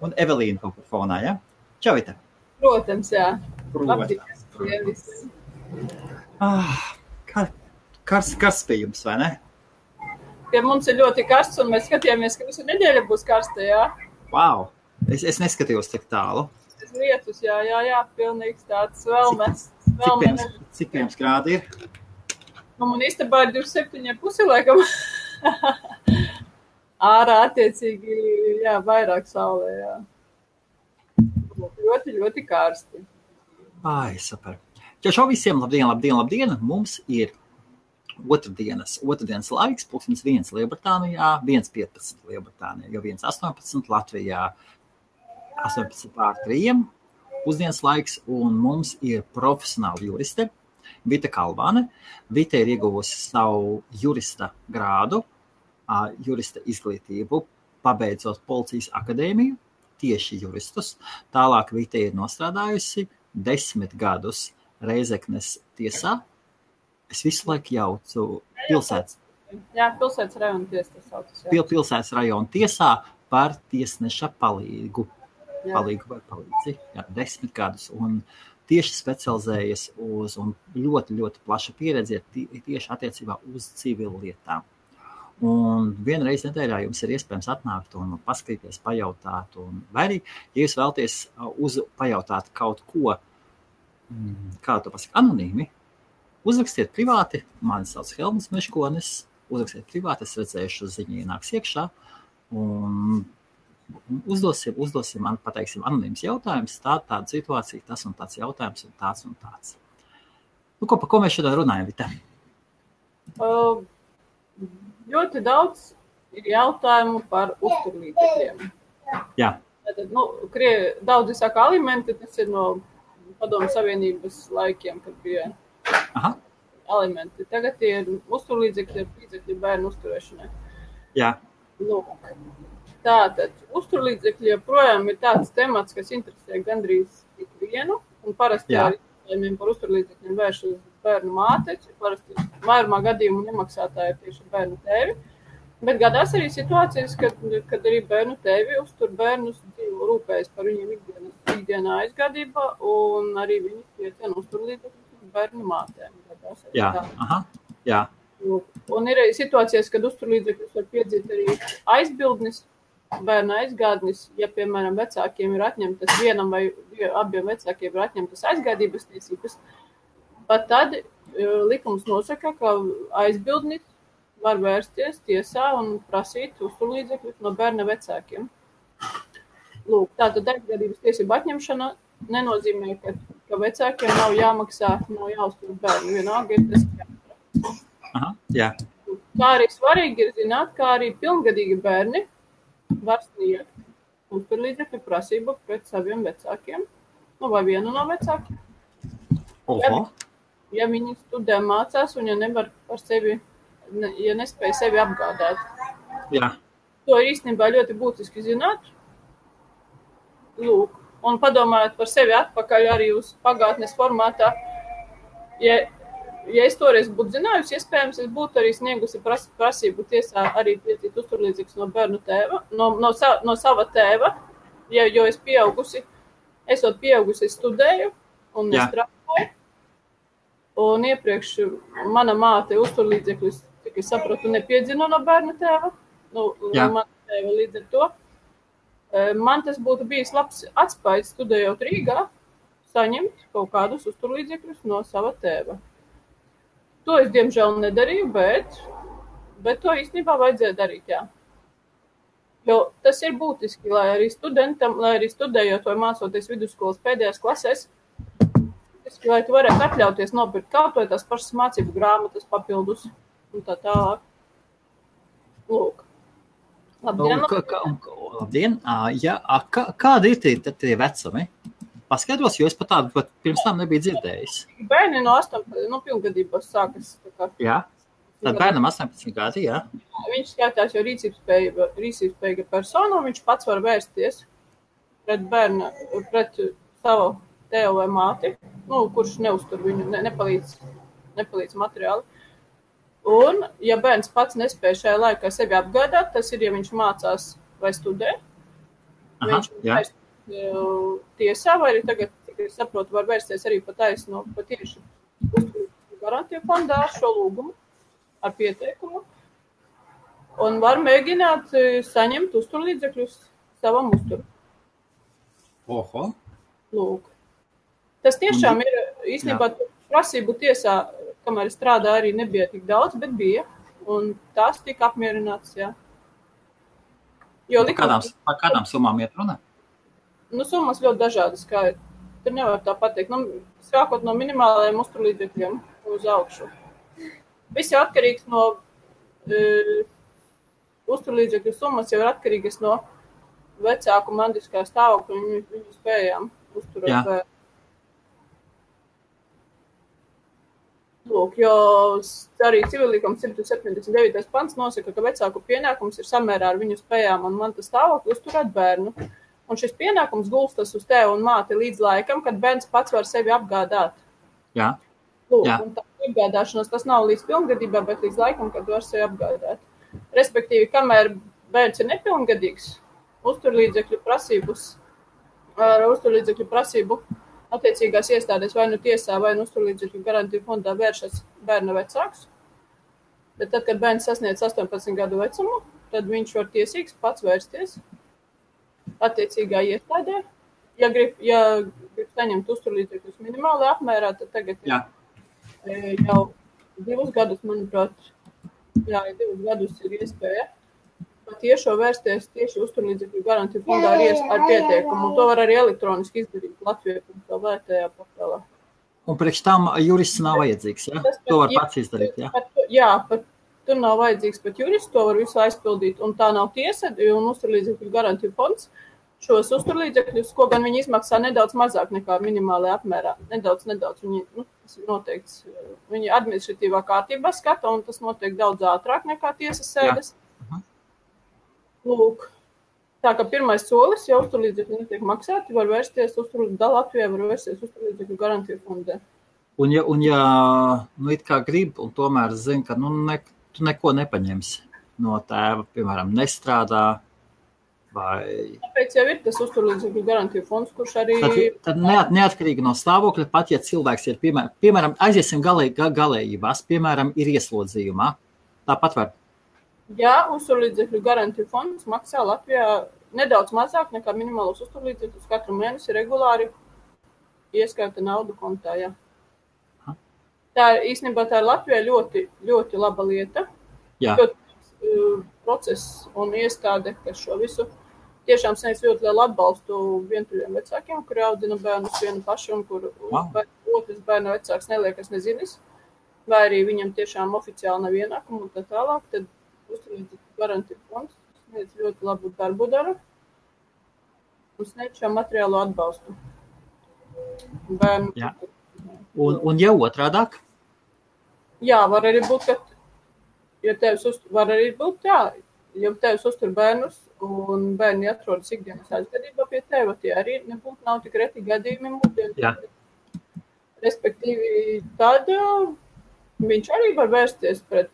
Un Evelīna kaut kur fonā, ja? Čau, Vita. Protams, jā. Protams. Karsts pie jums, vai ne? Pie mums ir ļoti karsts, un mēs skatījāmies, ka visu nedēļu būs karsta, jā. Wow! Es neskatījos tik tālu. Lietus, jā, pilnīgs tāds vēlmes. Cik pie jums grādi ir? Nu, man istabā ir 27,5 laikam. Ārā attiecīgi, jā, vairāk saulē, jā. Ļoti, ļoti karsti. Ai, super. Čau visiem, labdien. Mums ir otrdienas laiks, 1:01 Lielbritānijā, 1:15 Lielbritānijā, jau 1:18 Latvijā, 18:03 pusdienas laiks, un mums ir profesionāla juriste Vita Kalvane. Vita ir ieguvusi savu jurista grādu, jurista izglītību, pabeidzot Policijas akadēmiju, tieši juristus. Tālāk Vita ir nostrādājusi 10 gadus Reizeknes tiesā. Es visu laiku jaucu pilsētas. Jā, pilsētas rajona tiesa tas saucas. Pilsētas rajona tiesā par tiesneša palīgu. Palīgu vai palīdzi. Jā, 10 gadus. Un tieši specializējas uz, un ļoti, ļoti plaša pieredze tieši attiecībā uz civilu lietām. Un vienreiz nedēļā jums ir iespējams atnākt un paskatīties, pajautāt. Vai arī, ja jūs vēlaties pajautāt kaut ko, kā to pasaka, anonīmi, uzrakstiet privāti, mani sauc Helmuts Meškonis, uzrakstiet privāti, es redzēšu ziņu ienāks iekšā, un uzdosim man, pateiksim, anonīms jautājums, tāda situācija, tas un tāds jautājums, un tāds. Nu, par ko mēs šodien runājam, Vita? Ļoti daudz ir jautājumu par uzturlīdzekļiem. Jā. Tātad, daudzi saka alimenti, tas ir no Padomu Savienības laikiem, kad bija alimenti. Tagad ir uzturlīdzekļi, līdzekļi bērnu uzturēšanai. Jā. Lūk. Tātad, uzturlīdzekļi joprojām ir tāds temats, kas interesē gandrīz ikvienu, un parasti arī jautājumiem par uzturlīdzekļiem vērš uz bērnu māte, parasti vairumā gadījumu nemaksātāji ir tieši bērnu tēvi, bet gadās arī situācijas, kad arī bērnu tēvi uztur bērnus, rūpējas par viņiem ikdienā aizgādībā, un arī viņi piecien uzturlīdzekļus bērnu mātēm. Jā. Un ir arī situācijas, kad uzturlīdzekļus var piedzīt arī aizbildnis, bērna aizgādnis, ja, piemēram, vecākiem ir atņemtas vienam vai abiem vecākiem ir atņemtas aizgādības tiesības, pat tad likums nosaka, ka aizbildnis var vērsties tiesā un prasīt uzturlīdzekļus no bērna vecākiem. Lūk, tātad aizgādības tiesība atņemšana nenozīmē, ka vecākiem nav jāmaksā, nav jāuztur bērnu. Vienalga ir tas jāmaksā. Jā. Kā arī svarīgi ir zināt, kā arī pilngadīgi bērni var sniegt uzturlīdzekļu prasību pret saviem vecākiem, vai vienu no vecākiem. Ja viņi studē mācās un ja nevar par sevi, ja nespēja sevi apgādāt. Jā. To ir īstenībā ļoti būtiski zināt. Lūk, un padomājot par sevi atpakaļ arī uz pagātnes formātā. Ja es toreiz būtu zinājusi, iespējams, es būtu arī sniegusi prasību tiesā arī piedzīt uzturlīdzīgus no bērnu tēva, no sava tēva, jo es esot pieaugusi, studēju un nestrādāju. Un iepriekš mana māte uzturlīdzekļus, cik es sapratu, nepiedzina no bērnu tēva. Mana tēva līdz ar to. Man tas būtu bijis labs atspējas studējot Rīgā, saņemt kaut kādus uzturlīdzekļus no sava tēva. To es, diemžēl, nedarīju, bet to īstenībā vajadzēja darīt, jā. Jo tas ir būtiski, lai arī studentam, lai arī studējot vai mācoties vidusskolas pēdējās klasēs, lai tu varētu atļauties nopirkt kaut vai tās pašas mācību grāmatas papildus un tā tālāk. Lūk. Labdien. Kādi ir tie vecumi? Paskaidros, jo es pat tādu pirms tam nebiju dzirdējis. Bērni no 18, pilngadībās sākas. Jā, tad bērnam 18 gadi, jā. Viņš skatās jau rīcībspējīga persona, viņš pats var vērsties pret savu tēvu vai māti, kurš neuztur viņu, nepalīdz materiāli. Un, ja bērns pats nespēja šajā laikā sevi apgādāt, tas ir, ja viņš mācās vai studē, Viņš vērst tiesā, vai arī tagad, cik es saprotu, var vērsties arī pataisno patieši uzturlīdzekļu garantiju fondā ar šo lūgumu, ar pieteikumu, un var mēģināt saņemt uzturlīdzekļus savam uzturu. Oho. Lūk. Tas tiešām ir, īstenībā, prasību tiesā, kamēr strādā arī nebija tik daudz, bet bija, un tās tika apmierināts, jā. Par kādām summām iet runa? Summas ļoti dažādas, kā tur nevar tā pateikt. Sākot no minimālajiem uzturlīdzekļiem uz augšu. Viss jau atkarīgs no uzturlīdzekļu summas, jau ir atkarīgas no vecāku mandiskā stāvokļa un viņu spējām uzturēt bērnu. Lūk, jo arī civilīguma 179. pants nosaka, ka vecāku pienākums ir samērā ar viņu spējām un mantas stāvokli uzturēt bērnu. Un šis pienākums gulstas uz tevi un māti līdz laikam, kad bērns pats var sevi apgādāt. Jā. Lūk, un tā apgādāšanās tas nav līdz pilngadībā, bet līdz laikam, kad var sevi apgādāt. Respektīvi, kamēr bērns ir nepilngadīgs, uzturlīdzekļu prasību attiecīgās iestādēs vai nu tiesā, vai nu uzturlīdzekļu garantiju fondā vēršas bērna vecāks. Bet tad, kad bērns sasniedz 18 gadu vecumu, tad viņš var tiesīgs pats vērsties attiecīgā iestādē. Ja grib saņemt uzturlīdzekļus minimāli apmērā, tad tagad jau 2 gadus, manuprāt, 2 gadus ir iespēja tiešo vērsties tieši uzturlīdzekļu garantiju fondā ar pieteikumu. To var arī elektroniski izdarīt Latvijā.lv portālā. Un priekš tam jurists nav vajadzīgs, ja? To var pats izdarīt, ja? Tur nav vajadzīgs pat jurists, to var visu aizpildīt. Un tā nav tiesa, un uzturlīdzekļu garantiju fonds šos uzturlīdzekļus, ko gan viņi izmaksā nedaudz mazāk nekā minimālajā apmērā. Nedaudz. Viņi, tas ir noteikts, viņi administratīvā kārtībā skata, un tas notiek daudz ātrāk nekā tiesas sēdes. Lūk, tā kā pirmais solis, ja uzturlīdzekļi netiek maksāti, var vērsties Latvijā, var vērsties uzturlīdzekļu garantiju fondē. Un ja it kā grib, un tomēr zina, ka tu neko nepaņemsi no tēva, piemēram, nestrādā, vai... Tāpēc jau ir tas uzturlīdzekļu garantiju fonds, kurš arī... Tad neatkarīgi no stāvokļa, pat ja cilvēks ir, piemēram, aiziesim galējībās, piemēram, ir ieslodzījumā, tāpat var... Jā, uzturlīdzekļu garantiju fonds maksā Latvijā nedaudz mazāk nekā minimālos uzturlīdzekļus katru mēnesi regulāri ieskaita naudu kontā, jā. Īstenībā tā ir Latvijā ļoti, ļoti laba lieta. Jā. Process un iestāde, kas šo visu tiešām sniedz ļoti lielu atbalstu vientuļiem vecākiem, kuri audzina bērnus vienu paši un kur otrs bērna vecāks neliekas nezinis, vai arī viņam tiešām oficiāli nav ienākumu un tā tālāk, tad uzturlīdzekļu garantiju fonds sniedz ļoti labu darbu dara un sniedz šo materiālo atbalstu bērnu. Jā. Un jau otrādāk? Jā, var arī būt, ka ja tevis uztur bērnus un bērni atrodas ikdienas aizgadībā pie teva, tie arī nav tik reti gadījumi mūsdienu. Respektīvi, tad viņš arī var vērsties pret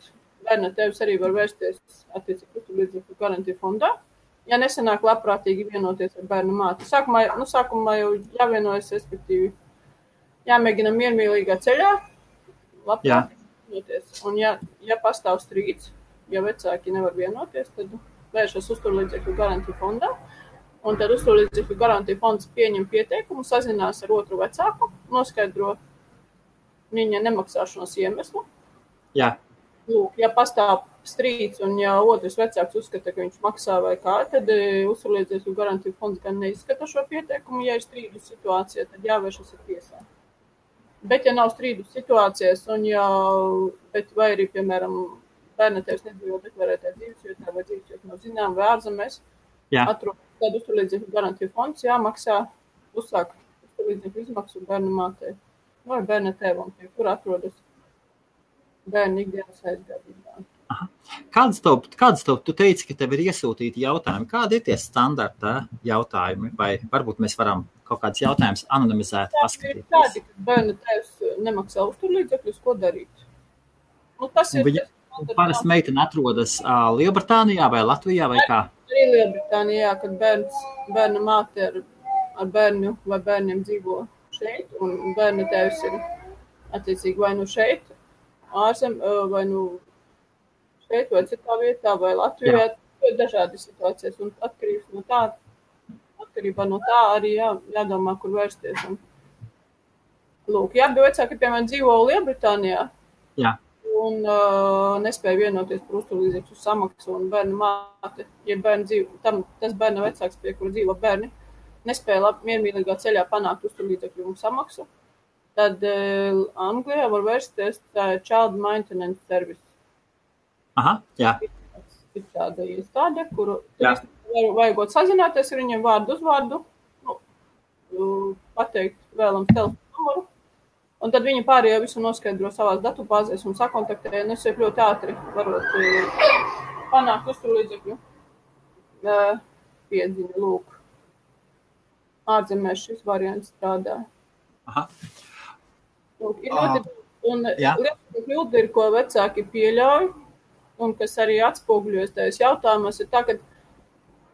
bērna tēvs arī var vērsties attiecīgi uzturlīdzekļu garantiju fondā, ja nesanāk labprātīgi vienoties ar bērnu māti. Sākumā jau jāvienojas, respektīvi, jāmēģina miermīlīgā ceļā labprātīgi vienoties. Un ja pastāv strīds, ja vecāki nevar vienoties, tad vēršas uzturlīdzekļu garantiju fondā, un tad uzturlīdzekļu garantiju fonds pieņem pieteikumu, sazinās ar otru vecāku, noskaidro viņa nemaksāšanas iemeslu. Jā. Lūk, ja pastāv strīds un ja otrs vecāks uzskata, ka viņš maksā vai kā, tad uzturlīdzekļu garantiju fonds gan neizskata šo pieteikumu. Ja ir strīdu situācija, tad jāvēršas ar tiesā. Bet ja nav strīdu situācijas vai arī, piemēram, bērna tēvs nedzīvo deklarētā dzīvesvietā vai dzīvesvietā nav zinām vai ārzemēs, tad uzturlīdzekļu garantiju fonds jāmaksā uzsāk uzturlīdzekļu izmaksu bērna mātei vai bērna tēvam, pie kura atrodas bērnu ikdienas aizgadībā. Kādas tev, tu teici, ka tev ir iesūtīti jautājumi. Kādi ir tie standarta jautājumi? Vai varbūt mēs varam kaut kādus jautājumus anonimizēt, paskatīties? Tādi, ka bērna tēvs nemaksā uzturlīdzekļus, ko darīt? Tas ir... Parasti meitene atrodas Lielbritānijā vai Latvijā vai kā? Arī Lielbritānijā, kad bērna māte ar bērnu vai bērniem dzīvo šeit, un bērna tēvs ir attiecīgi vai nu šeit, vai nu šeit, vai citā vietā, vai Latvijā. Ir dažādi situācijas, un atkarībā no tā arī jādomā, kur vērsties. Un, lūk, abi vecāki, piemēram, dzīvo Lielbritānijā. Jā. Un nespēja vienoties par uzturlīdzekļu samaksu, un bērna māte, ja tas bērna vecāks, pie kura dzīvo bērni, nespēja miermīlīgā ceļā panākt uzturlīdzekļu samaksu, tad Anglijā var vērsties Child Maintenance Service. Aha, jā. Ir tāda iestāde, kuru vajagot sazināties ar viņiem vārdu uz vārdu, pateikt vēlams telefonu numuru. Un tad viņi pārējo visu noskaidro savās datubāzēs un sakontaktē, un es ļoti ātri varot panākt uzturlīdzekļu piedziņu, lūk. Ārzemēs šis variants strādā. Aha. Lūk, ir liela kļūda ir, ko vecāki pieļauj, un kas arī atspoguļojas tajos jautājumos, ir tā, ka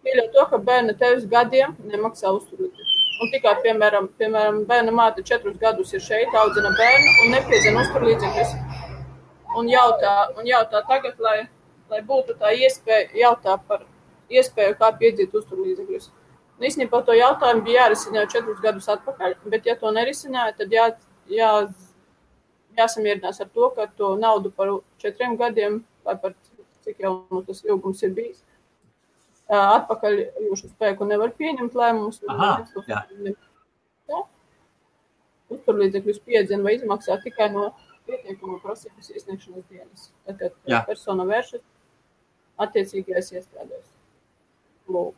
pieļauj to, ka bērna tēvs gadiem nemaksā uzturlīdzekļu. Un tikai, piemēram, bērna māte 4 gadus ir šeit, audzina bērnu un nepiedzina uzturlīdzekļus. Un jautā tagad, lai būtu tā iespēja, jautā par iespēju, kā piedzīt uzturlīdzekļus. Un īstenībā to jautājumu bija jārisina jau 4 gadus atpakaļ, bet ja to nerisināja, tad jāsamierinās ar to, ka to naudu par 4 gadiem, vai par cik jau tas ilgums ir bijis, atpakaļ jūsu spēku nevar pieņemt lēmumus. Uzturlīdzekļus piedzina vai izmaksā tikai no pietiekamo prasības iesniegšanas dienas. Tad, kad persona vēršas attiecīgajās iestādēs. Lūk.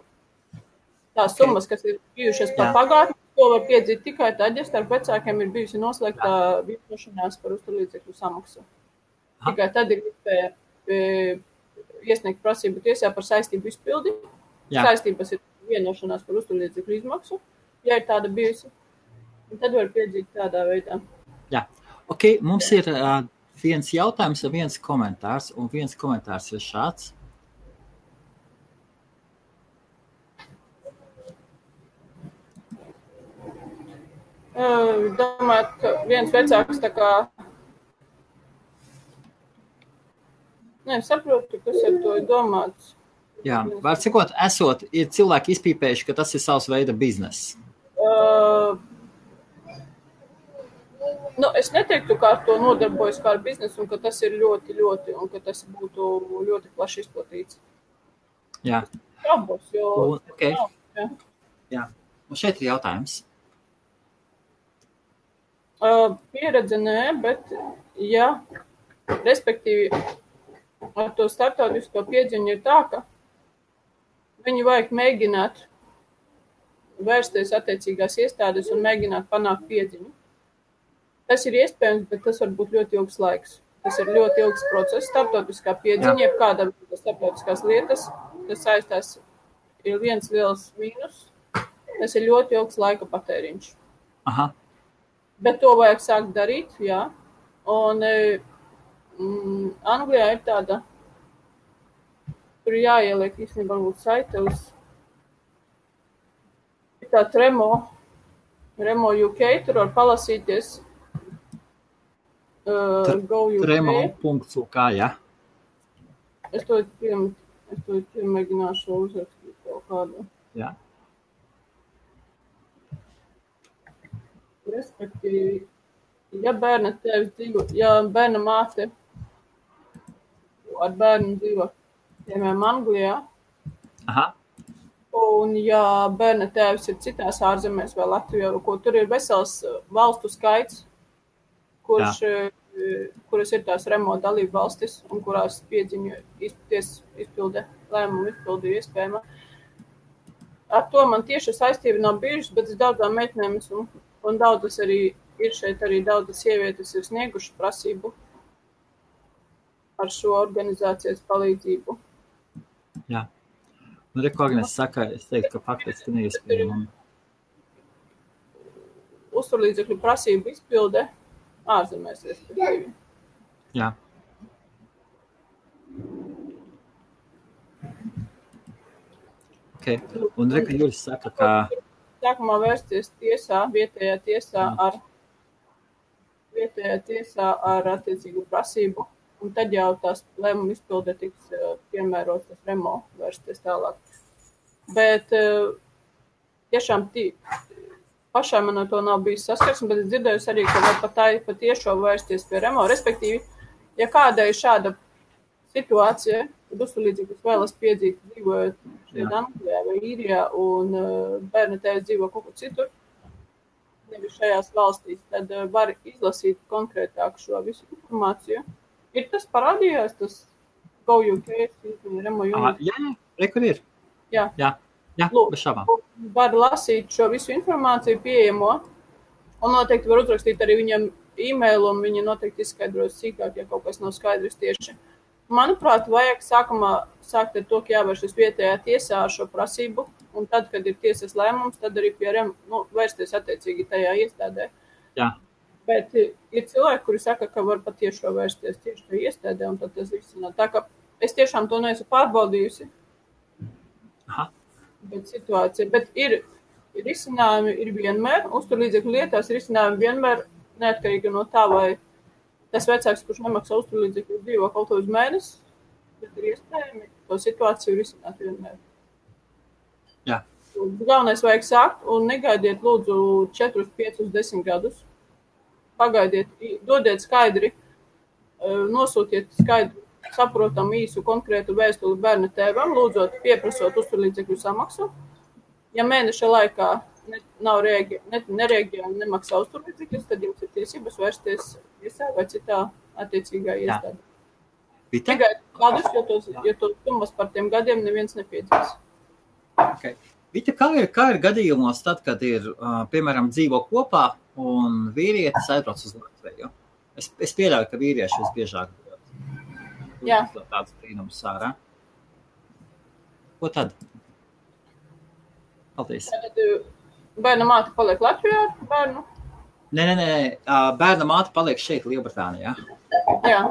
Tās summas, kas ir bijušas par pagātni, to var piedzīt tikai tad, ja starp vecākiem ir bijusi noslēgta vienošanās par uzturlīdzekļu samaksu. Tikai tad ir iespēja iesniegt prasību tiesā par saistību izpildi. Saistības ir vienošanās par uzturlīdzekļu izmaksu, ja ir tāda bijusi. Un tad var piedzīt tādā veidā. Jā. Ok, mums ir viens jautājums un viens komentārs. Un viens komentārs ir šāds. Domāju, ka viens vecāks tā kā saprotu, kas ar to ir domāts. Jā, var sakot, ir cilvēki izpīpējuši, ka tas ir savs veida bizness. Es neteiktu, kā ar to nodarbojas kā ar biznesu, un ka tas ir ļoti, un ka tas būtu ļoti plaši izplatīts. Jā. Šaubos, jo... Okay. Jā. Un šeit ir jautājums. Pieredze nē, bet respektīvi, ar to starptautisko piedziņu ir tā, ka viņu vajag mēģināt vērsties attiecīgās iestādes un mēģināt panākt piedziņu. Tas ir iespējams, bet tas var būt ļoti ilgs laiks. Tas ir ļoti ilgs process, starptautiskā piedziņa, jebkāda starptautiskās lietas, kas saistās, ir viens liels mīnus. Tas ir ļoti ilgs laika patēriņš. Aha. Bet to vajag sākt darīt, jā. Un Anglijā ir tāda, tur jāieliek īstenībā varbūt saite uz tā Remo UK, tur var palasīties Go UK. Tremo.uk, jā. Es to mēģināšu uzrakstīt kaut kādu. Jā. Respektīvi, ja bērna tēvs dzīvo, ja bērna māte ar bērnu dzīvo, piemēram, Anglijā, un ja bērna tēvs ir citās ārzemēs vai Latvijā, ko tur ir vesels valstu skaits, kuras ir tās Remo dalību valstis un kurās piedziņu izpilde, lēmumu izpildi ir iespējama. Ar to man tieši saistība nav bijušas, bet es daudzām meitnēm un daudzas arī ir šeit arī daudzas sievietes ir sniegušas prasību ar šo organizācijas palīdzību. Jā. Nu, ko Agnes saka, es teiktu, ka faktiski neiespējami. Uzturlīdzekļu prasību izpilde ārzemēs, respektīvi. Jā. Okay. Un Reka Juris saka, ka... Sākumā vērsties vietējā tiesā ar attiecīgu prasību, un tad jau tās lēmuma izpilde tiks piemērots tas remo vērsties tālāk. Bet tiešām pašai man ar to nav bijis saskarsme, bet es dzirdējusi arī, ka var pat tiešo vērsties pie remo. Respektīvi, ja kādai šāda situācija, kad uzturlīdzīgus vēlas piedzīt dzīvojot šeit Anglijā vai Īrijā un bērna tēvs dzīvo kaut kur citur, nevis šajās valstīs, tad var izlasīt konkrētāk šo visu informāciju. Ir tas parādījās, tas Go UK, Remo Unit? Jā, kur ir? Jā, bez šabām. Var lasīt šo visu informāciju pieejamo, un noteikti var uzrakstīt arī viņam e-mailu, un viņi noteikti izskaidros sīkāk, ja kaut kas nav skaidrs tieši. Manuprāt, vajag sākumā sākt ar to, ka jāvēršas vietējā tiesā ar šo prasību, un tad, kad ir tiesas lēmums, tad arī pie vērsties attiecīgi tajā iestādē. Jā. Bet ir cilvēki, kuri saka, ka var patiešo vērsties tieši tajā iestādē, un tad tas viss nav. Tā kā es tiešām to neesmu pārbaudījusi. Aha. Bet ir risinājumi, ir vienmēr, uzturlīdzekļu lietās risinājumi vienmēr neatkarīgi no tā, vai tas vecāks, kurš nemaksā uzturlīdzekļus dzīvo kaut uz mēnesi, bet ir iespējami to situāciju risināt vienmēr. Jā. Galvenais vajag sākt un negaidiet lūdzu 4, 5, 10 gadus. Pagaidiet, dodiet skaidri, nosūtiet skaidru, saprotam īsu konkrētu vēstuli bērna tēvam, lūdzot pieprasot uzturlīdzekļu samaksu. Ja mēneša laikā nereaģē un nemaksā uzturlīdzekļus, tad jums ir tiesības vērsties tiesā vai citā attiecīgā iestādē. Tikai kādus, jo tos summas par tiem gadiem neviens nepiedzīs. Okay. Vita, kā ir gadījumos tad, kad ir, piemēram, dzīvo kopā un vīrietis aizbrauc uz Latviju? Es pieļauju, ka vīrieši visbiežāk tāds brīnums sārā. Ko tad? Paldies. Bērna māte paliek Latvijā ar bērnu? Nē. Bērna māte paliek šeit, Lielbritānijā. Jā.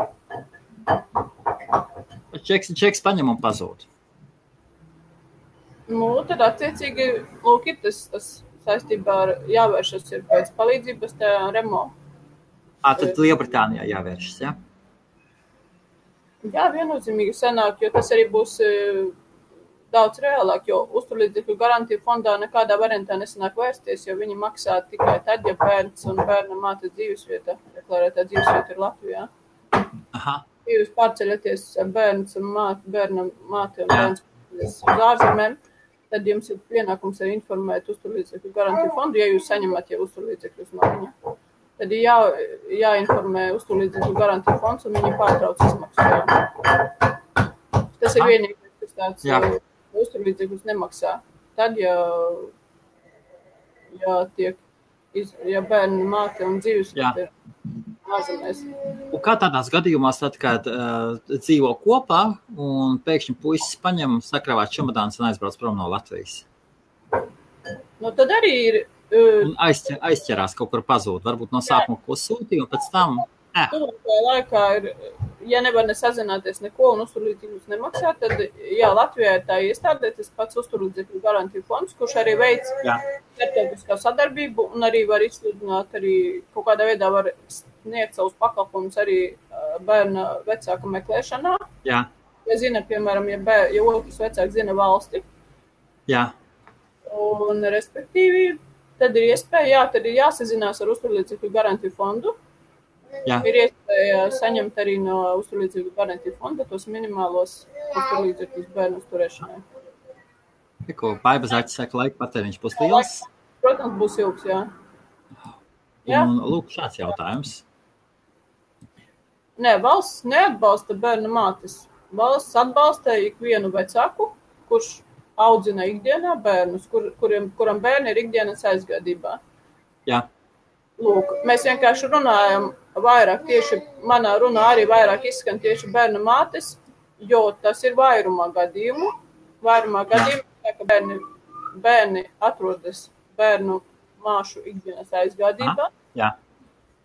Čeks paņem un pazūd. Tad attiecīgi, lūk, ir tas saistībā ar jāvēršas ir pēc palīdzības tajā remo. Tad Lielbritānijā jāvēršas, jā? Jā, viennozīmīgi sanāk, jo tas arī būs daudz reālāk, jo uzturlīdzekļu garantiju fondā nekādā variantā nesanāk vērsties, jo viņi maksā tikai tad, ja bērns un bērna mātes dzīvesvieta, deklarētā dzīvesvieta ir Latvijā. Aha. Ja jūs pārceļaties bērns un bērna māte un bērns uz ārzemēm, tad jums ir pienākums arī informēt uzturlīdzekļu garantiju fondu, ja jūs saņemat jau uzturlīdzekļus no viņa. Tad ir jāinformē uzturlīdzekļu garantiju fonds un viņi pārtrauc izmaksu. Tas ir vienīgais, kas tāds uzturlīdzekļus nemaksā. Tad, ja bērni māte un dzīvesvieta ir ārzemēs. Un kā tādās gadījumās, tad, kad dzīvo kopā un pēkšņi puisis paņem sakravāt čemodāns un aizbrauc prom no Latvijas? Tad arī ir... Un aizķerās kaut kur pazūd, varbūt no sākuma ko sūtīja un pēc tam... Tuvākajā laikā ir, ja nevar nesazināties neko un uzturlīdzekļus nemaksā, tad Latvijā ir tā iestādē tas pats uzturlīdzekļu garantiju fonds, kurš arī veic starptautiskā sadarbību un arī var izsludināt arī kaut kādā veidā var sniegt savus pakalpumus arī bērna vecāka meklēšanā. Jā. Ja zina, piemēram, ja otrs vecāks zina valsti. Jā. Un respektīvi, tad ir iespēja, tad ir jāsazinās ar uzturlīdzekļu garantiju fondu. Jā. Ir iespēja saņemt arī no uzturlīdzekļu garantiju fonda tos minimālos uzturlīdzekļus bērnu uzturēšanai. Ko Baiba Zaķis saka, laika patēriņš būs liels? Protams, būs ilgs, jā. Un lūk, šāds jautājums. Nē, valsts neatbalsta bērna mātes. Valsts atbalsta ikvienu vecāku, kurš audzina ikdienā bērnus, kuram bērni ir ikdienas aizgādībā. Jā. Lūk, mēs vienkārši runājam vairāk, tieši manā runā arī vairāk izskan tieši bērna mātes, jo tas ir vairumā gadījumu. Vairumā gadījumu, ka bērni atrodas bērnu māšu ikdienas aizgādībā. Jā.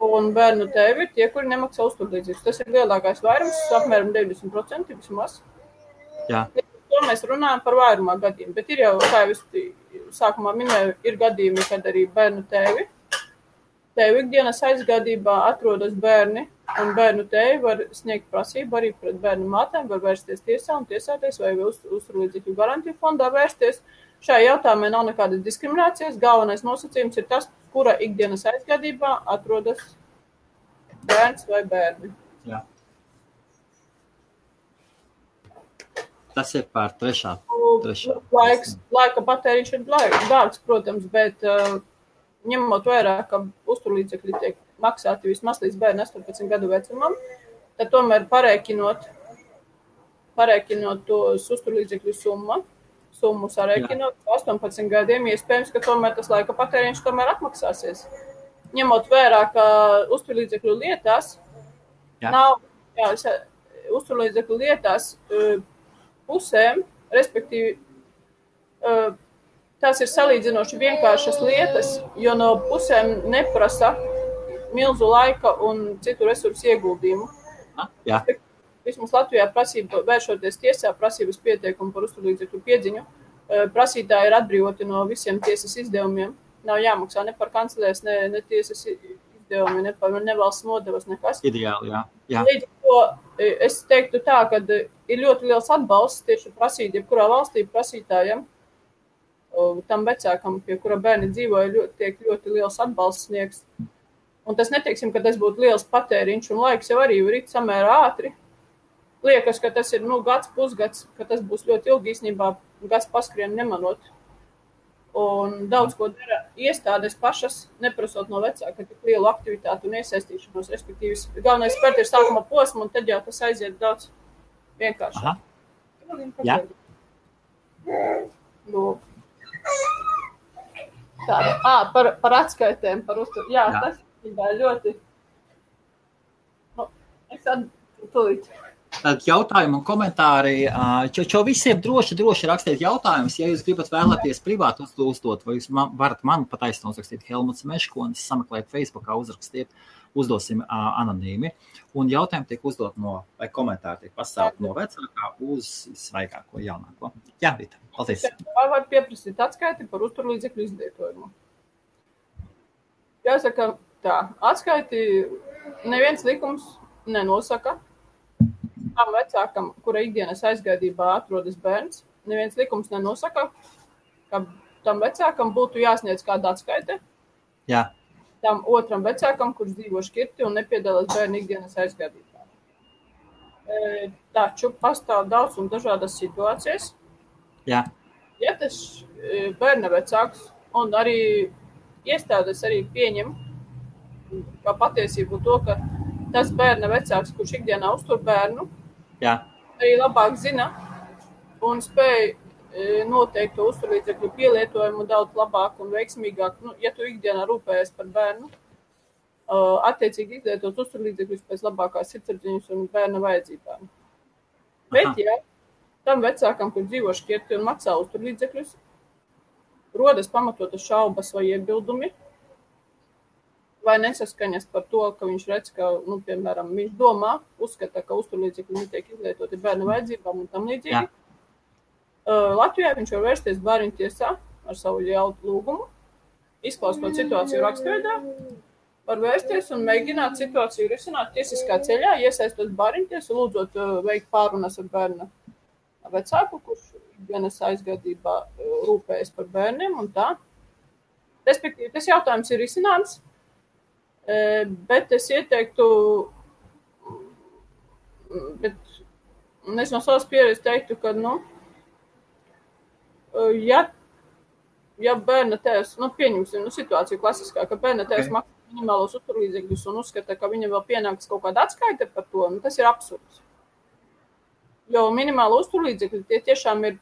Un bērnu tēvi ir tie, kuri nemaksā uzturlīdzekļus. Tas ir lielākais vairums, apmēram 90% vismaz. Jā. to mēs runājam par vairumā gadījumu, bet ir jau, kā jau es sākumā minēju, ir gadījumi, kad arī bērnu tēvi ikdienas aizgādībā atrodas bērni, un bērnu tēvi var sniegt prasību arī pret bērnu mātēm, var vērsties tiesā un tiesāties vai uzturlīdzekļu garantiju fondā vērsties. Šajā jautājumā nav nekādas diskriminācijas, galvenais nosacījums ir tas, kura ikdienas aizgādībā atrodas bērns vai bērni. Jā. Tas ir par trešā. Laika patēriņš ir dārgs, protams, bet ņemot vērā, ka uzturlīdzekļi tiek maksāti vismaz līdz bērnu 18 gadu vecumam, tad tomēr parēķinot tos uzturlīdzekļu summu sarēķinot 18 gadiem, iespējams, ka tomēr tas laika patēriņš tomēr atmaksāsies. Ņemot vērā, ka uzturlīdzekļu lietās uzturlīdzekļu lietās pusēm, respektīvi, tās ir salīdzinoši vienkāršas lietas, jo no pusēm neprasa milzu laika un citu resursu ieguldījumu. Jā. Vismaz Latvijā prasība, vēršoties tiesā, prasības pieteikumu par uzturlīdzekļu piedziņu, prasītāji ir atbrīvoti no visiem tiesas izdevumiem. Nav jāmaksā ne par kancelēs, ne tiesas izdevumi, ne par nevalsts nodevas, nekas. Ideāli, jā. Līdz ar to es teiktu tā, ka ir ļoti liels atbalsts tieši prasīt, jebkurā valstī prasītājiem, tam vecākam, pie kura bērni dzīvoja, tiek ļoti liels atbalsts sniegs. Un tas neteiksim, ka tas būtu liels patēriņš, un laiks jau arī rit samērā ātri. Liekas, ka tas ir gads, pusgads, ka tas būs ļoti ilgi, īstenībā gads paskrien nemanot. Un daudz ko dara iestādes pašas, neprasot no vecāka tik lielu aktivitātu un iesaistīšanos, respektīvi, galvenais spērt ir sākuma posma, un tad jau tas aiziet daudz vienkāršāk. Jā. Tāda. Par atskaitēm, par uzturu. Jā, tas ir ļoti. Es tūlīt. Tad jautājumi un komentāri. Čo visiem droši rakstīt jautājumus. Ja jūs gribat vēlaties privāti uzdot, vai jūs varat man pataisnot uzrakstīt Helmuts Meškonis, sameklēt Facebookā, uzrakstiet, uzdosim anonīmi. Un jautājumi tiek uzdot vai komentāri tiek pasaukt no vecākā uz svaigāko, jaunāko. Jā, Vita, paldies. Vai var pieprasīt atskaiti par uzturlīdzekļu izlietojumu? Jāsaka tā, atskaiti neviens likums nenosaka. Tam vecākam, kura ikdienas aizgādībā atrodas bērns, neviens likums nenosaka, ka tam vecākam būtu jāsniedz kāda atskaite. Jā. Tam otram vecākam, kurš dzīvo šķirti un nepiedalās bērnu ikdienas aizgādībā. Taču pastāv daudz un dažādas situācijas. Jā. Ja tas bērna vecāks un arī iestādes arī pieņem kā patiesību to, ka tas bērna vecāks, kurš ikdienā uztur bērnu, arī labāk zina un spēj noteikt to uzturlīdzekļu pielietojumu daudz labāk un veiksmīgāk. Ja tu ikdienā rūpējies par bērnu, attiecīgi izlietot uzturlīdzekļus pēc labākās sirdsapziņas un bērna vajadzībām. Bet, ja tam vecākam, kur dzīvo šķirti un maksā uzturlīdzekļus, rodas pamatotas šaubas vai iebildumi, vai nesaskaņas par to, ka viņš redz, ka, piemēram, viņš domā, uzskata, ka uzturlīdzekļi netiek izlietoti bērnu vajadzībām un tam līdzīgi. Latvijā viņš var vērsties bērnu tiesā ar savu lūgumu, izklausot situāciju rakstveidā, var vērsties un mēģināt situāciju risināt tiesiskā ceļā, iesaistot bērnu tiesu, lūdzot veikt pārunas ar bērna vecāku, kurš ikdienas aizgādībā rūpējas par bērniem un tā. Respektīvi, tas jautājums ir risināms. Bet es ieteiktu, es no savas pieredzes teiktu, ka, ja bērna tēvs, pieņemsim situāciju klasiskā, ka bērna tēvs maksā minimālos uzturlīdzekļus un uzskata, ka viņam vēl pienāks kaut kāda atskaite par to, tas ir absurds. Jo minimāla uzturlīdzekļi tie tiešām ir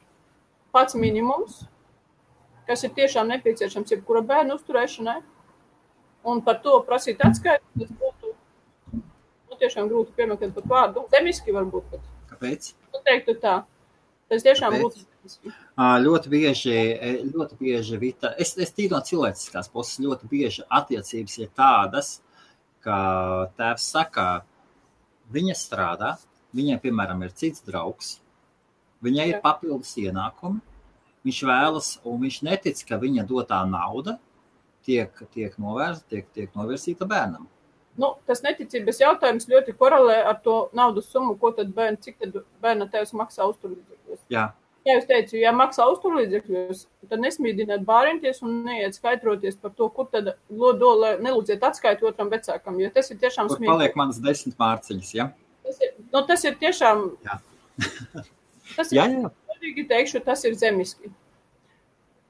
pats minimums, kas ir tiešām nepieciešams jebkura bērna uzturēšanai. Un par to prasīt atskaiti, tas būtu tiešām grūti piemeklēt pat vārdu. Zemiski varbūt pat. Kāpēc? Teiktu tā. Tas tiešām būtu zemiski. Ļoti bieži, Vita, es tīri no cilvēciskās puses, ļoti bieži attiecības ir tādas, ka tēvs saka, viņa strādā, viņai, piemēram, ir cits draugs, Viņai ir papildus ienākumi, viņš vēlas, un viņš netic, ka viņa dotā nauda tiek novērsīta bērnam. Tas neticības jautājums ļoti korelē ar to naudas summu, cik tad bērna tēvs maksā uzturlīdzekļos. Jā. Ja jūs teicu, ja maksā uzturlīdzekļos, tad nesmīdiniet bāriņties un neiet skaidroties par to, kur tad nelūdziet atskaitu otram vecākam, jo tas ir tiešām smieklīgi. Kur paliek manas 10 mārciņas, ja? Tas ir tiešām... Jā. Teikšu, tas ir zemiski.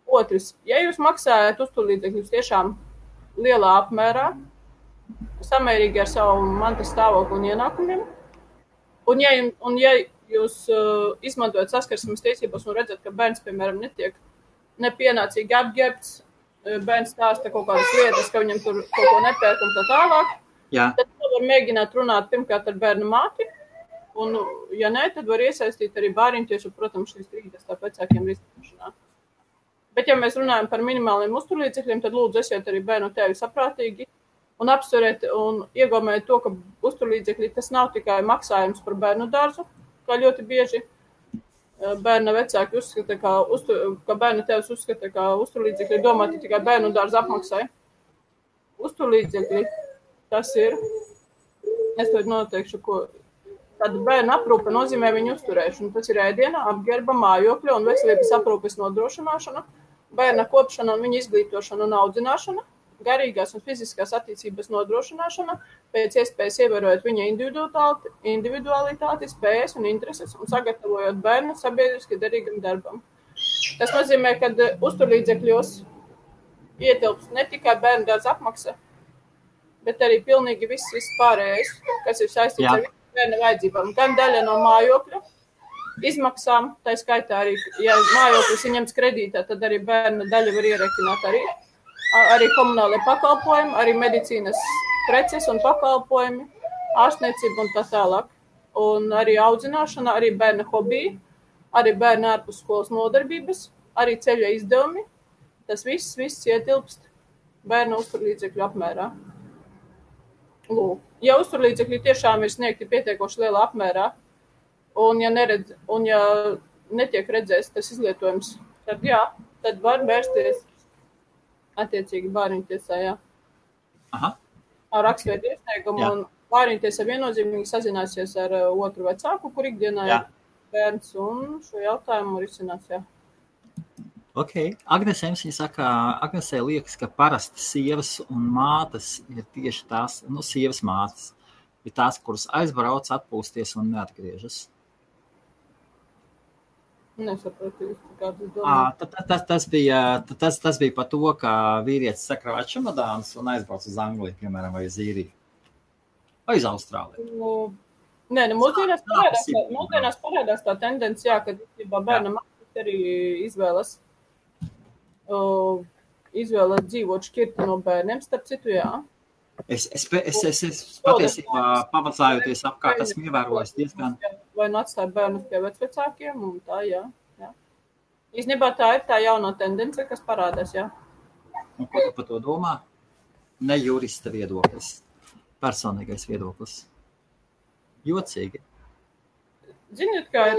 Otrs, ja jūs maksājat uzturlīdzekļus tiešām lielā apmērā, samērīgi ar savu mantas stāvokli un ienākumiem, un ja jūs izmantojat saskarsmes tiesības un redzat, ka bērns, piemēram, netiek nepienācīgi apģērbts, bērns stāsta kaut kādas lietas, ka viņam tur kaut ko nepērk un tā tālāk, tad var mēģināt runāt pirmkārt ar bērnu māti, un, ja nē, tad var iesaistīt arī bāriņtiešu, protams, šīs strīdas tā vecākiem risināšanā. Bet, ja mēs runājam par minimāliem uzturlīdzekļiem, tad lūdzu esiet arī bērnu tēvi saprātīgi un apsveriet un iegaumēt to, ka uzturlīdzekļi tas nav tikai maksājums par bērnu dārzu, kā ļoti bieži bērna vecāki uzskata, ka bērna tēvs uzskata, ka uzturlīdzekļi domāti tikai bērnu dārza apmaksai. Uzturlīdzekļi, tas ir, es to noteikšu, ko tāda bērna aprūpe nozīmē viņu uzturēšanu. Tas ir ēdiena, apģērba, mājokļa un veselības aprūpes nodrošināšana, bērna kopšana un viņa izglītošana un audzināšana, garīgās un fiziskās attīstības nodrošināšana, pēc iespējas ievērojot viņa individualitāti, spējas un intereses un sagatavojot bērnu sabiedriski derīgam darbam. Tas nozīmē, ka uzturlīdzekļos ietilps ne tikai bērnu dārza apmaksa, bet arī pilnīgi viss pārējais, kas ir saistīts ar bērna vajadzībām. Gan daļa no mājokļa izmaksām, tā skaitā arī, ja mājoklis ir ņemts kredītā, tad arī bērna daļa var ierekināt arī komunālie pakalpojumi, arī medicīnas preces un pakalpojumi, ārstniecība un tā tālāk. Un arī audzināšana, arī bērna hobija, arī bērna ārpus skolas nodarbības, arī ceļa izdevumi. Tas viss ietilpst bērna uzturlīdzekļu apmērā. Lūk. Ja uzturlīdzekļi tiešām ir sniegti pietiekoši lielā apmērā, un ja netiek redzēts tas izlietojums, tad var vērsties attiecīgi bāriņtiesā, ar rakstveidu iesniegumu, un bāriņtiesā viennozīmīgi sazināsies ar otru vecāku, kur ikdienā ir bērns, un šo jautājumu risinās, Ok. Agnesē liekas, ka parasti sievas un mātes ir tieši tās, sievas mātes ir tās, kuras aizbrauc, atpūsties un neatgriežas. Nesapratu, kādas domās. Tas bija par to, ka vīrietis sakrāja čemodānus un aizbrauc uz Angliju, piemēram, vai uz Īriju. Vai uz Austrāliju. Mūsdienās parādās tā tendencija, ka bērna mātes arī izvēlas dzīvot šķirti no bērniem, starp citu, Es patiesībā pavacājoties apkārt, esmu ievērojis diezgan. Vai atstāja bērnus pie vecvecākiem, un tā, Īstenībā tā ir tā jaunā tendence, kas parādās, Un ko tu par to domā? Ne jurista viedoklis, personīgais viedoklis. Jocīgi. Ziniet, kā ir,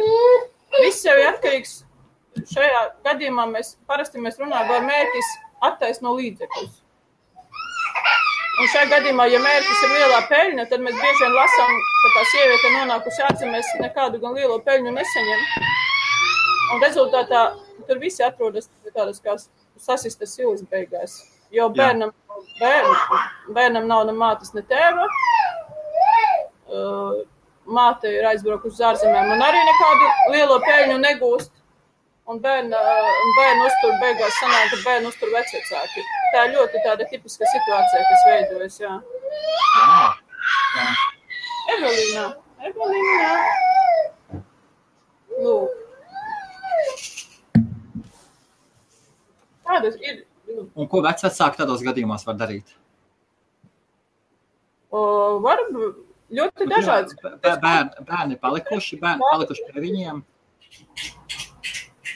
viss jau ir atkarīgs. Šajā gadījumā mēs runājam, vai mērķis attaisno līdzekļus. Un šajā gadījumā, ja mērķis ir lielā peļņa, tad mēs bieži vien lasām, ka tā sieviete nonākusi ārzemēs nekādu gan lielo peļņu nesaņem. Un rezultātā tur visi atrodas tādas kā sasistas silas beigās. Jo bērnam nav ne mātes, ne tēva. Māte ir aizbraukusi uz ārzemēm un arī nekādu lielo peļņu negūst. Un bērnu uztur beigās sanāk, ka bērnu uztur vecvecāki. Tā ir ļoti tāda tipiska situācija, kas veidojas, Evelīna. Lūk. Tādas ir. Un ko vecvecāki tādos gadījumos var darīt? Var ļoti dažādas. Bērni palikuši pie viņiem.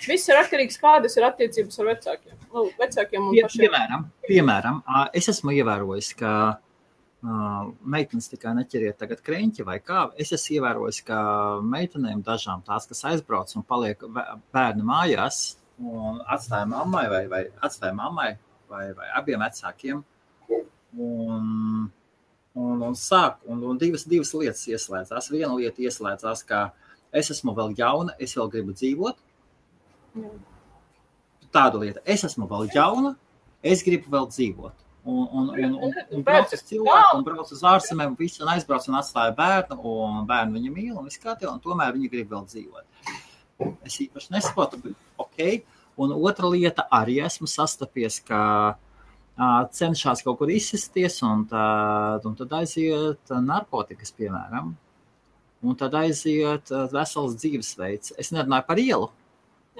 Viss ir atkarīgs, kādas ir attiecības ar vecākiem un pašiem. Piemēram, es esmu ievērojis, ka meitenes tikai neķeriet tagad kreņķi vai kā. Es esmu ievērojis, ka meitenēm dažām tās, kas aizbrauc un paliek bērni mājās un atstāja mammai vai abiem vecākiem un sāk, un divas lietas ieslēdzās. Viena lieta ieslēdzās, ka es esmu vēl jauna, es vēl gribu dzīvot. Tāda lieta, es esmu vēl jauna, es gribu vēl dzīvot. Un brauc uz cilvēku, un brauc uz ārzemēm, un aizbrauc un atstāja bērnu, un bērnu viņa mīl, un viss kā tie, un tomēr viņa grib vēl dzīvot. Es īpaši nesaprotu, bet ok. Un otra lieta, arī esmu sastapies, ka cenšās kaut kur izsisties, un tad aiziet narkotikas, piemēram, un tad aiziet vesels dzīvesveids. Es nerunāju par ielu.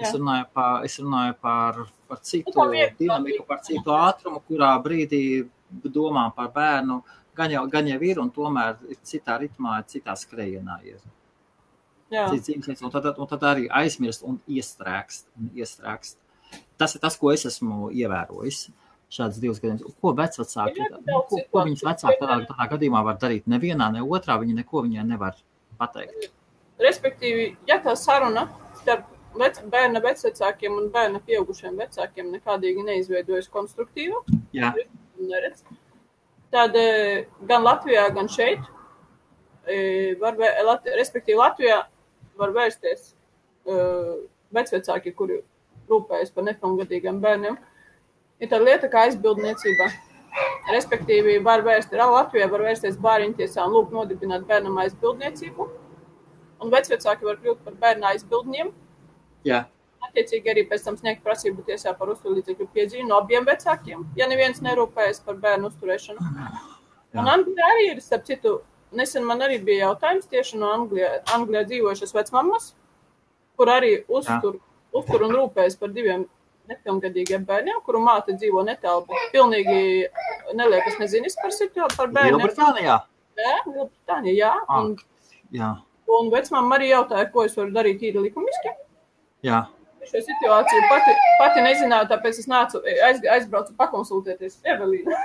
Es runāju par citu dinamiku, par citu ātrumu, kurā brīdī domā par bērnu, gan jau ir, un tomēr citā ritmā, citā skrejienā ir. Un tad arī aizmirst un iestrēgst. Tas ir tas, ko es esmu ievērojis. Šādas divas gadījumus. Ko vecvecāki, ko viņas vecāki tādā gadījumā var darīt? Nevienā, ne otrā, viņi neko viņai nevar pateikt. Respektīvi, ja tā saruna starp bērna vecvecākiem un bērna pieaugušiem vecākiem nekādīgi neizveidojas konstruktīva, tad gan Latvijā, gan šeit, respektīvi Latvijā var vērsties vecvecāki, kuri rūpējas par nepilngadīgiem bērniem. Ir tāda lieta kā aizbildniecība. Respektīvi, Latvijā var vērsties bāriņtiesā un lūgt nodibināt bērnam aizbildniecību, un vecvecāki var kļūt par bērna aizbildņiem. Jā. Attiecīgi arī pēc tam sniegt prasību tiesā par uzturlīdzekļu piedzīvi no abiem vecākiem, ja neviens nerūpējas par bērnu uzturēšanu. Jā. Un Anglijā arī ir, starp citu, nesen man arī bija jautājums tieši no Anglijā dzīvojušas vecmammas, kur arī uztur un rūpējas par diviem nepilngadīgiem bērniem, kuru māte dzīvo netālu, bet pilnīgi neliekas nezinis par bērniem. Lielbritānijā? Jā, Lielbritānijā, jā. Un vecmamma arī jautāja, ko es varu darīt īri likumiski. Jā. Šo situāciju pati nezināju, tāpēc es aizbraucu pakonsultēties. Evelīna.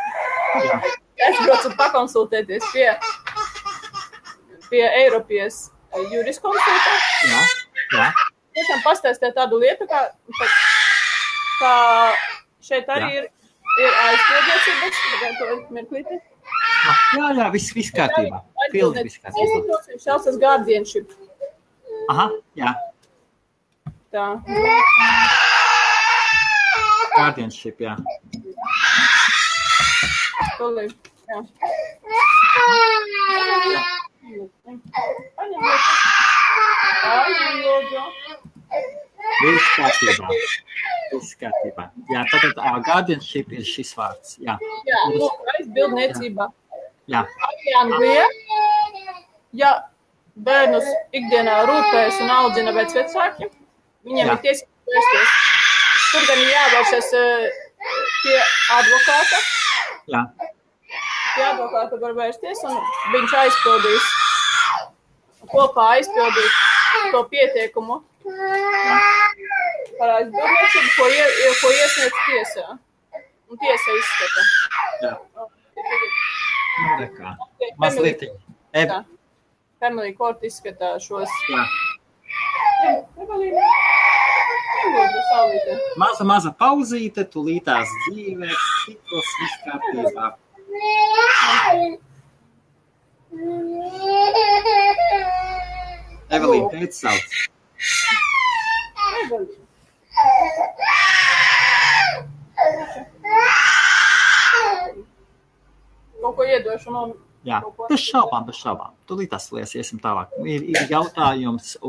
Aizbraucu pakonsultēties pie Eiropas juriskonsulta. Jā. Tiešām pastāstīt tādu lietu, kā šeit arī ir aizpildniecības. Mirklīti. Jā, viss kārtībā. Pilnīgi viss kārtībā. Šāds guardianship. Aha, jā. Tā. Guardianship, jā. Tolī, jā. Viss kārtībā. Jā, tātad guardianship ir šis vārds. Jā, aizbildniecība. Jā. Arī Anglijā, ja bērnus ikdienā rūpējas un audzina vecvecāki, viņiem ir tiesības vērsties. Tur gan ir jāvēršas pie advokāta. Jā. Pie advokāta var vērsties, un viņš kopā aizpildīs to pieteikumu par aizbildniecību, ko iesniedz tiesā. Un tiesa izskata. Jā. Nekā. Mazliet. Family court izskatā šos. Jā. Maza pauzīte, tulītās dzīvē, citos viss kārtībā. Evelīna, teici sauc. Evelīna. Kaut ko iedošu no... Jā, bez šaubām. Tūlīt tas iesim tālāk. Ir jautājums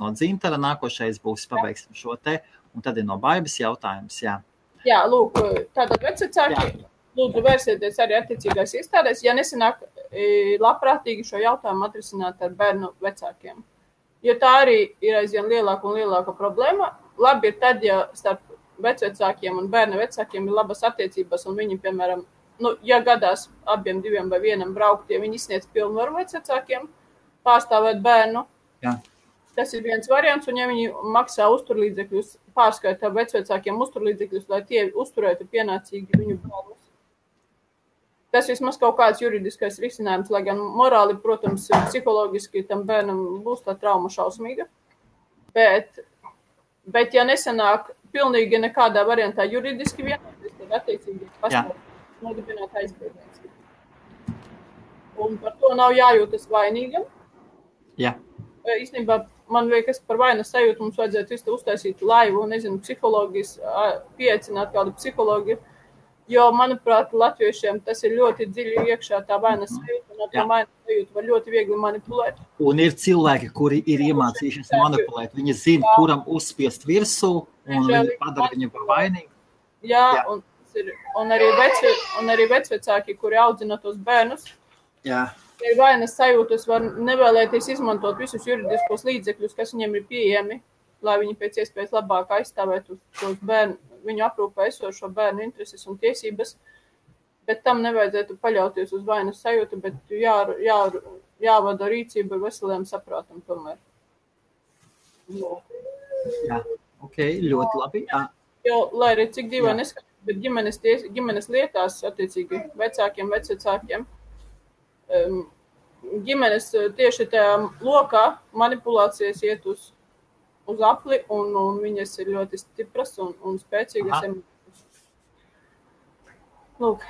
no Dzintara. Nākošais būs pabeigsim šo te, un tad ir no Baibas jautājums, jā. Jā, lūk, tātad vecvecāki, lūdzu vērsieties arī attiecīgās iestādēs, ja nesanāk labprātīgi šo jautājumu atrisināt ar bērnu vecākiem. Jo tā arī ir aizvien lielāka un lielāka problēma. Labi ir tad, ja starp vecvecākiem un bērna vecākiem ir labas attiecības, un viņi, piemēram, ja gadās abiem diviem vai vienam braukt, ja viņi izsniedz pilnvaru vecvecākiem pārstāvēt bērnu, tas ir viens variants, un ja viņi maksā uzturlīdzekļus, pārskaitā vecvecākiem uzturlīdzekļus, lai tie uzturētu pienācīgi viņu bērnus. tas vismaz kaut kāds juridiskais risinājums, lai gan morāli, protams, psiholoģiski tam bērnam būs tā trauma šausmīga. Bet ja nesanāk pilnīgi nekādā variantā juridiski vienoties, tad attiecīgi pastāv nodibināt aizbildniecību. Un par to nav jājūtas vainīgam. Jā. Īstenībā man liekas par vainas sajūtu mums vajadzētu visu uztaisīt laivu, nezinu, psiholoģijas, pieaicināt kādu psiholoģiju, jo, manuprāt, latviešiem tas ir ļoti dziļi iekšā tā vainas sajūta, un tā vainas sajūta var ļoti viegli manipulēt. Un ir cilvēki, kuri ir iemācījušies manipulēt. Viņi zina, kuram uzspiest virsū, un viņi padara viņu par vainīgu. Jā. Un arī vecvecāki, kuri audzina tos bērnus, jā. Ir vainas sajūtas, var nevēlēties izmantot visus juridiskos līdzekļus, kas viņiem ir pieejami, lai viņi pēc iespējas labāk aizstāvētu tos bērnu, viņu aprūpē esošo bērnu intereses un tiesības, bet tam nevajadzētu paļauties uz vainas sajūtu, bet jāvada rīcība ar veseliem saprātam tomēr. Jā, ok, ļoti labi. Jā. Jo, lai arī cik dīvaini neskatās, bet ģimenes lietās, attiecīgi vecākiem, vecvecākiem, ģimenes tieši tajā lokā manipulācijas iet uz apli, un viņas ir ļoti stipras un spēcīgas. Lūk.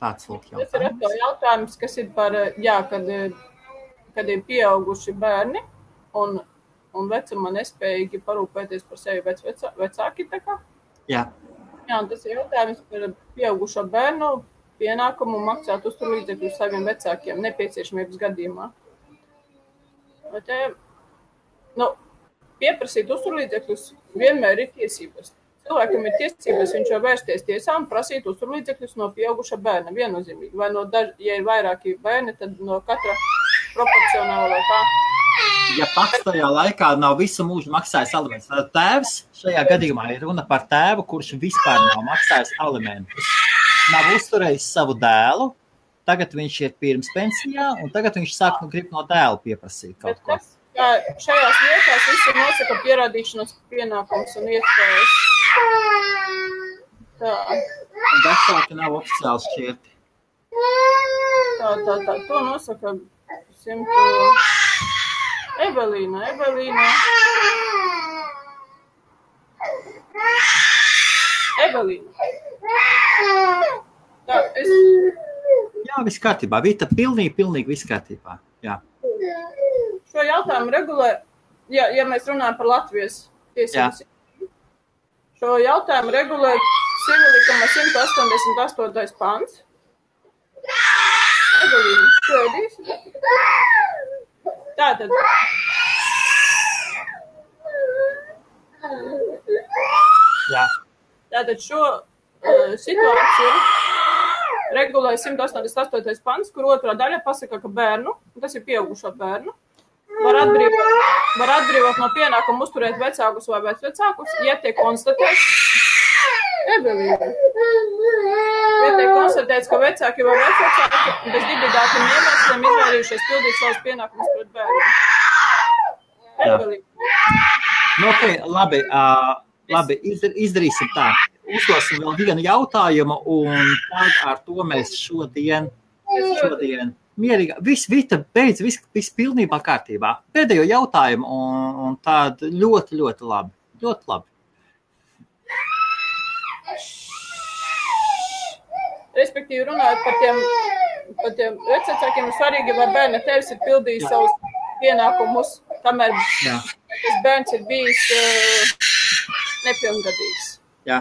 Tāds lūk jautājums. Tas ir atkal jautājums, kas ir par, kad ir pieauguši bērni un vecuma nespējīgi parūpēties par sevi vecāki, tā kā? Jā. Jā, un tas ir jautājums par pieaugušo bērnu pienākumu maksāt uzturlīdzekļus saviem vecākiem nepieciešamības gadījumā. Pieprasīt uzturlīdzekļus vienmēr ir tiesības. Cilvēkam ir tiesības, viņš var vērsties tiesā un prasīt uzturlīdzekļus no pieauguša bērna viennozīmīgi. Vai ja ir vairāki bērni, tad no katra proporcionāli vai kā. Ja pats tajā laikā nav visu mūžu maksājis alimentus, tad tēvs šajā gadījumā ir runa par tēvu, kurš vispār nav maksājis alimentus. Nav uzturējis savu dēlu, tagad viņš ir pirms pensijā, un tagad viņš grib no dēla pieprasīt kaut ko. Šajās lietās visi nosaka pierādīšanas pienākums un iespējas. Tā. Un vecāki nav oficiāli šķirti. Tā. To nosaka 100... Evelīna. Tā, Jā, viss kārtībā. Vita, pilnīgi viss kārtībā. Jā. Šo jautājumu regulē, ja mēs runājam par Latvijas tiesības, šo jautājumu regulē Civilikuma 188. pants. Evelīna, tu ēdīsi? Tātad. Jā. Tātad šo situāciju regulē 188. pants, kur otrā daļa pasaka, ka bērnu, tas ir pieaugušo bērnu, var atbrīvot no pienākuma uzturēt vecākus vai vecvecākus, ja tiek konstatēts, ka vecāki vai vecvecāki bez dibidātiem iemesliem izvairījušies pildīt savus pienākumus pret bērnu. Okay, labi, izdarīsim tā. Uzdosim vēl vienu jautājumu, un tad ar to mēs šodien mierīgi. Vita beidz, viss pilnībā kārtībā. Pēdējo jautājumu, un tād ļoti labi. Ļoti labi. Respektīvi runājot par tiem vecākiem ir svarīgi, vai bērna tevis ir pildījis savus pienākumus, kamēr tas bērns ir bijis nepilngadīgs. Jā.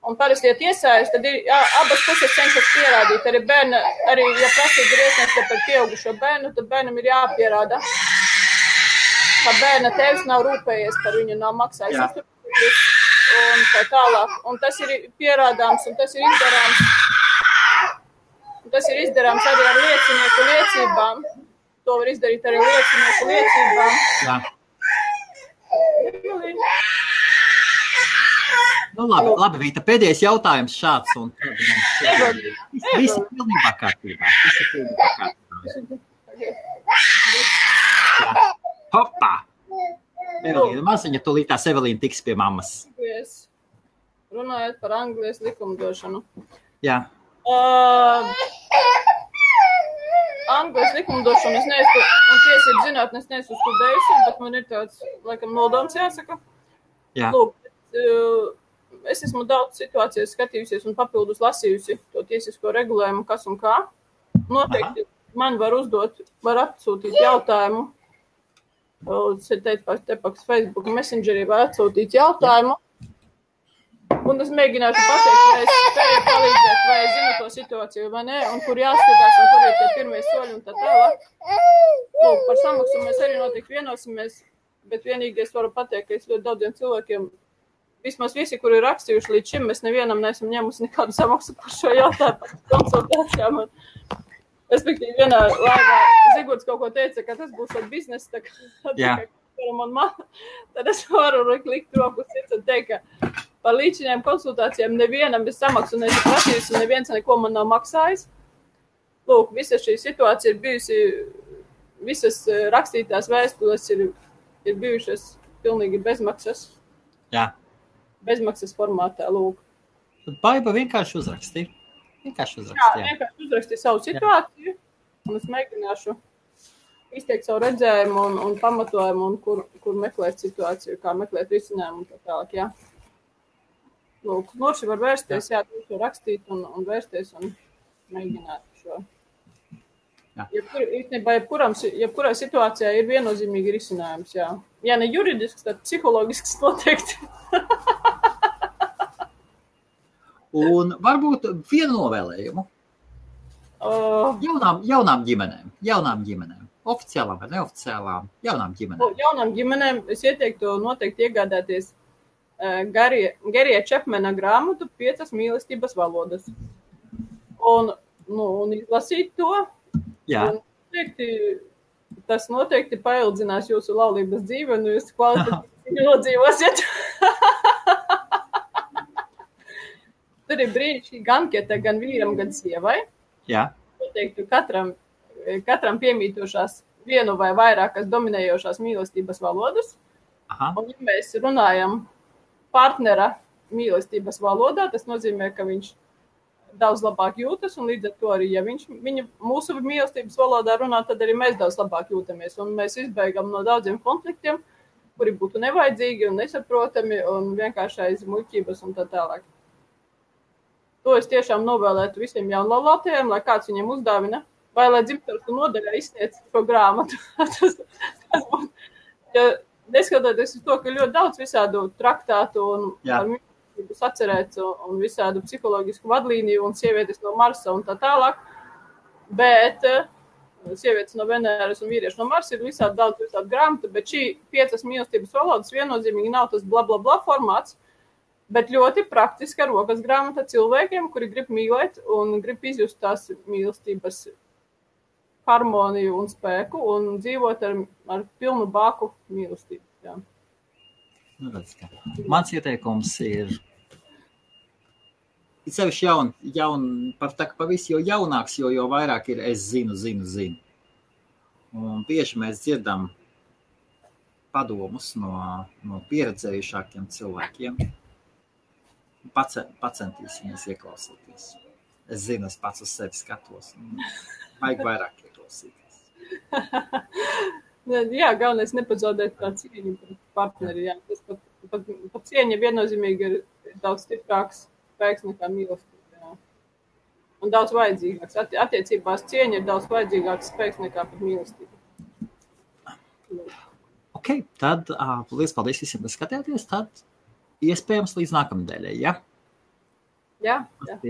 Un parasti, ja tiesājas, tad ir abas puses cenšas pierādīt. Arī ja prasība ir iesniegta par pieaugušo bērnu, tad bērnam ir jāpierāda, ka bērna tēvs nav rūpējies par viņu, nav maksājis uzturlīdzekļus un tā tālāk. Un tas ir pierādāms, un tas ir izdarāms. Tas ir izdarāms arī ar liecinieku liecībām. To var izdarīt arī liecinieku liecībām. Jā. Nu, labi, Vita, pēdējais jautājums šāds, un viss ir pilnībā kārtībā. Hopā! Evelīna, maziņa, tūlīt tās Evelīna tiks pie mammas. runājot par Anglijas likumdošanu. Jā. Anglijas likumdošanu es neesmu, un tiesību zinātni es neesmu studējusi, bet man ir tāds, laikam, nodoms jāsaka. Jā. Lūk, es esmu daudz situācijas skatījusies un papildus lasījusi to tiesisko regulējumu, kas un kā. Noteikti man var atsūtīt jautājumu. Te paks Facebook Messengerī var atsūtīt jautājumu. Un es mēģināšu pateikt, vai es spēju palīdzēt, vai es zinu to situāciju, vai nē, un kur jāskatās, un kur ir tie pirmie soļi un tā tālāk. Lūk, par samaksu mēs arī noteikti vienosimies, bet vienīgi es varu pateikt, ka es ļoti daudziem cilvēkiem, vismaz visi, kuri ir rakstījuši līdz šim, mēs nevienam neesam ņēmusi nekādu samaksu par šo jautājumu, par konsultācijām. Respektīvi, vienā laivā Zigurds kaut ko teica, ka tas būs ar biznesu, tā kā tad es varu likt roku sirds un teikt, ka par līdzinājām konsultācijām nevienam es samaksu neesmu prasījusi, un neviens neko man nav maksājis. Lūk, visa šī situācija ir bijusi, visas rakstītās vēstules ir bijušas pilnīgi bezmaksas. Jā. Bezmaksas formātā, lūk. Tad Baiba vienkārši uzrakstīja. Jā, vienkārši uzrakstīja savu situāciju, un es mēģināšu izteikt savu redzējumu un pamatojumu, un kur meklēt situāciju, kā meklēt risinājumu un tā tālāk, jā. Lūk, noši var vērsties, jā, to rakstīt un vērsties un mēģināt šo. Jebkurai situācijā ir viennozīmīgi risinājums, jā. Ja ne juridisks, tad psihologisks noteikti. Un varbūt vienu novēlējumu jaunām ģimenēm, oficiālām vai neoficiālām, jaunām ģimenēm. Jaunām ģimenēm es ieteiktu noteikti iegādāties Garija Čepmena grāmatu 5 mīlestības valodas. Un izlasīt to. Jā. Tas noteikti paildzinās jūsu laulības dzīvi, un jūs kvalitatīvi nodzīvosiet. Tur ir brīnišķīgi anketa gan vīram, gan sievai. Jā. Noteikti katram piemītošās vienu vai vairākas dominējošās mīlestības valodas. Aha. Un ja mēs runājam partnera mīlestības valodā, tas nozīmē, ka viņš daudz labāk jūtas, un līdz ar to arī, ja viņa mūsu mīlestības valodā runā, tad arī mēs daudz labāk jūtamies, un mēs izbeigam no daudziem konfliktiem, kuri būtu nevajadzīgi un nesaprotami, un vienkārši aiz muļķības un tā tālāk. To es tiešām novēlētu visiem jaunlaulātajiem, lai kāds viņiem uzdāvina, vai lai dzimtaru nodaļā izsniedz šo grāmatu. Tas būtu, ja neskatoties uz to, ka ļoti daudz visādu traktātu un par mīlestības atcerēts un visādu psiholoģisku vadlīniju un sievietes no Marsa un tā tālāk, bet sievietes no Venēras un vīrieši no Marsa ir visādi grāmatu, bet šī 5 mīlestības valodas viennozīmīgi nav tas bla bla bla formāts, bet ļoti praktiska rokas grāmata cilvēkiem, kuri grib mīlēt un grib izjust tās mīlestības harmoniju un spēku un dzīvot ar pilnu bāku mīlestību. Jā. Mans ieteikums ir sevišķi par visu, jo jaunāks, jo vairāk ir es zinu. Un bieži mēs dzirdam padomus no pieredzējušākiem cilvēkiem. Pacentīsimies ieklausīties. Es zinu, es pats uz sevi skatos. Vajag vairāk ieklausīties. Jā, galvenais nepazaudēt tā cieņu par partneri. Jā. Tas pat cieņa viennozīmīgi ir daudz stiprāks spēks nekā mīlestība. Jā. Un daudz vajadzīgāks. Attiecībās cieņa ir daudz vajadzīgāks spēks nekā pat mīlestība. Ok, tad liels paldies visiem, kas skatījāties. Tad iespējams līdz nākamnedēļai, ja? Jā.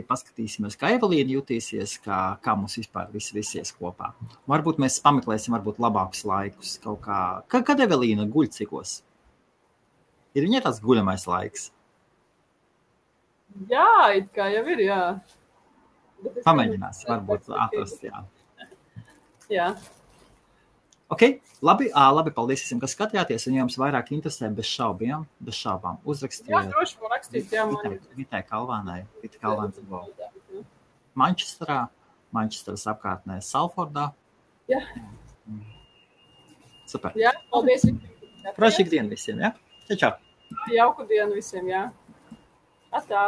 Paskatīsimies, kā Evelīna jutīsies, kā mums vispār visies kopā. Varbūt mēs pameklēsim labākus laikus kaut kā. Kad Evelīna guļ cikos? Ir viņai tāds guļamais laiks? Jā, it kā jau ir, jā. Pamēģinās, varbūt atrast, jā. Jā. Ok, labi, paldies visiem, kas skatījāties, un ja jums vairāk interesē bez šaubām, uzrakstiet. Jā, droši var rakstīt, jā, Vitai Kalvānai, Manchesteras apkārtnē, Salfordā. Jā. Super. Jā, paldies. Prašīgu dienu visiem, jā? Čau. Jauku dienu visiem, jā. Atā.